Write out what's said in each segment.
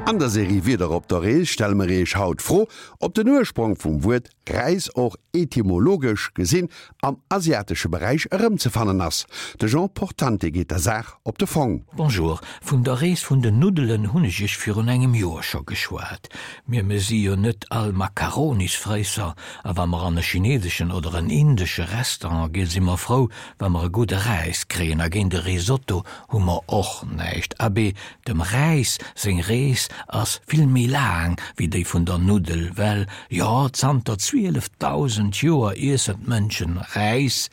An der Serie Wieder op der Rees stelle mer Iech haut d'Fro, ob den Ursprong vum Wuert Räis och etymologesch gesinn am asiatesche Beräich erëmzefannen ass. De Jean Portante geet der Saach op de Fong. Bonjour, vun der Rees vun den Nuddelen hunn ech iech virun engem Joer scho geschwat. Mir mir si jo net all Makaronisfréisser, a wa mer an e chineseschen oder en indesche Restaurant ginn, si mer frou, wa mer e gudde Räis kréien, a géint e Risotto hu mer och näischt. Abee, dem Räis seng Rees ass vill méi laang wéi déi vun der Nuddel, well, jo, zanter 12.000 Joer iessen d'Mënschen Räis,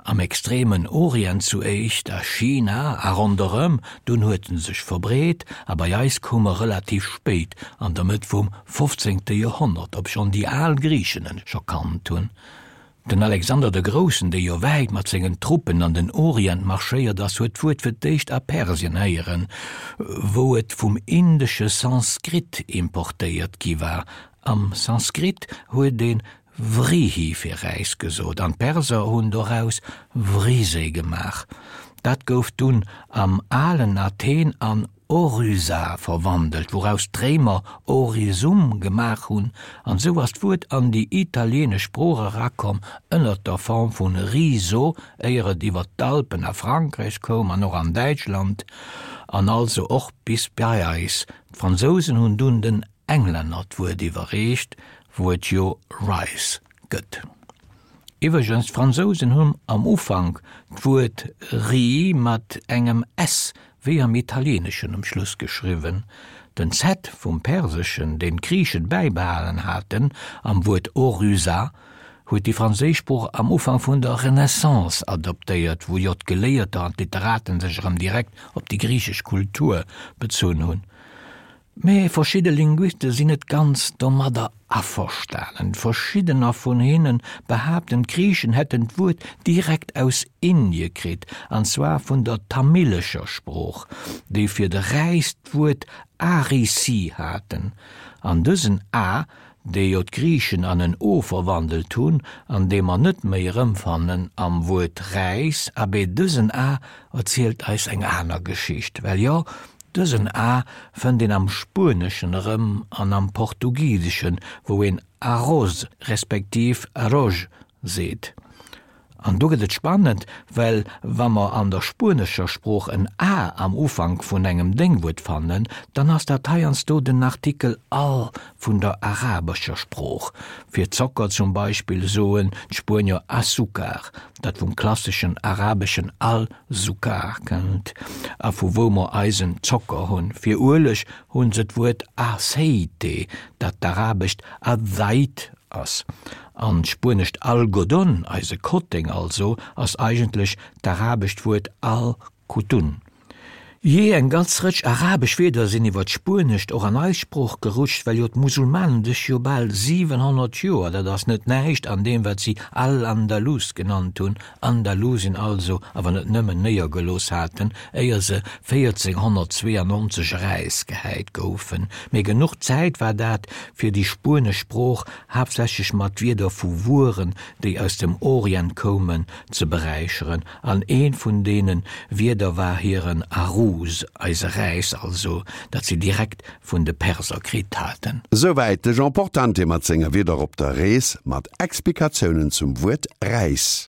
am extremen Orient zu éischt, a China a ronderëm, dunn huet en sech verbreet a bei eis koum e relativ spéit, an der Mëtt vum fofzéngte Joerhonnert, obschonn déi al Griichen en scho kannt hunn. Den Alexander de Groussen, dee jo wäit mat sengen Truppen an den Orient marschéiert ass, huet d'Wuert fir d'éischt a Persien héieren, wou et vum indesche Sanskrit importéiert gi war. Am Sanskrit huet ee Vrihi fir Räis gesot an d'Perser hunn doraus Vrise gemaach. Dat gouf dunn am alen Athen an Oryza verwandelt, wouraus d'Réimer Orizum gemaach hunn, an esou ass d'Wuert an déi italieenesch Sprooch erakomm ënnert der Form vun riso, éier et iwwer d'Alpen a Frankräich koum an och an Däitschland an also och bis bei eis. D'Fransousen hunn dunn den Englänner d'Wuert iwwerreecht, wou et jo rice gëtt. Iwwregens, d'Fransousen hunn am Ufank d'Wuert riz mat engem s wéi am Italieeneschen um Schluss geschriwwen. Den z vum Perseschen, deen d'Griichen bäibehalen haten am Wuert oryza, huet déi franséisch Sprooch am Ufank vun der Renaissance adoptéiert, wou jo d'Geléierter an d'Literaten sech erëm direkt op déi griichesch Kultur bezunn hunn. Mee verschidde Linguiste sinn net ganz domadder averstanen. Verschiddener vun hinne behaapten, d'Griichen hätten d'Wuert direkt aus Indie kritt, an zwar vun der tamilescher Sprooch, déi fir de Räis d'Wuert arisi haten. An dësen a, dee jo d'Griichen an en o verwandelt hunn, an dee mer net méi erëmfannen am Wuert Räis, abee dësen a erzielt eis eng aner Geschicht. Well jo, Dësen a fënnt een am Spueneschen erëm an am Portugiseschen, wou een arroz respektiv arroz seet. An do gëtt et spannend, well wa mer an der spuenescher Sprooch en a am Ufank vun engem Déngwuert fannen, dann ass dat heiansdo den Artikel al vun der arabescher Sprooch. Fir Zocker zum Beispill soen d'Spuenier azúcar, dat vum klasseschen arabeschen al Sukkar kënnt a vu wou mer eisen Zocker hunn. Fir Ueleg hunn se d'Wuert aceite, dat d'arabescht azzait ass. An d'spuenescht algodón, eise Kotteng also, ass eigentlech d'arabescht Wuert al-kutun. Jee, eng ganz Rëtsch arabesch Wierder sinn iwwer d'Spuenescht och an eis Sprooch gerutscht, well jo d'Musulmanen sech jo bal 700 Joer, dat ass net näischt, an deem wat si Al-Andalus genannt hunn, Andalusien also, awer net nëmmen, néiergelooss haten, éier se 1492 erausgehäit goufen. Mee genuch Zäit war dat, fir déi spuenesch Sprooch, haaptsächlech mat Wierder vu Wueren, déi aus dem Orient koumen, ze beräicheren. An eent vun deene Wierder war hiren Aruz, eise Räis also, dat si direkt vun de Perser kritt haten. Souwäit de Jean Portante mat senger Wieder op der Rees mat Explikatiounen zum Wuert Räis.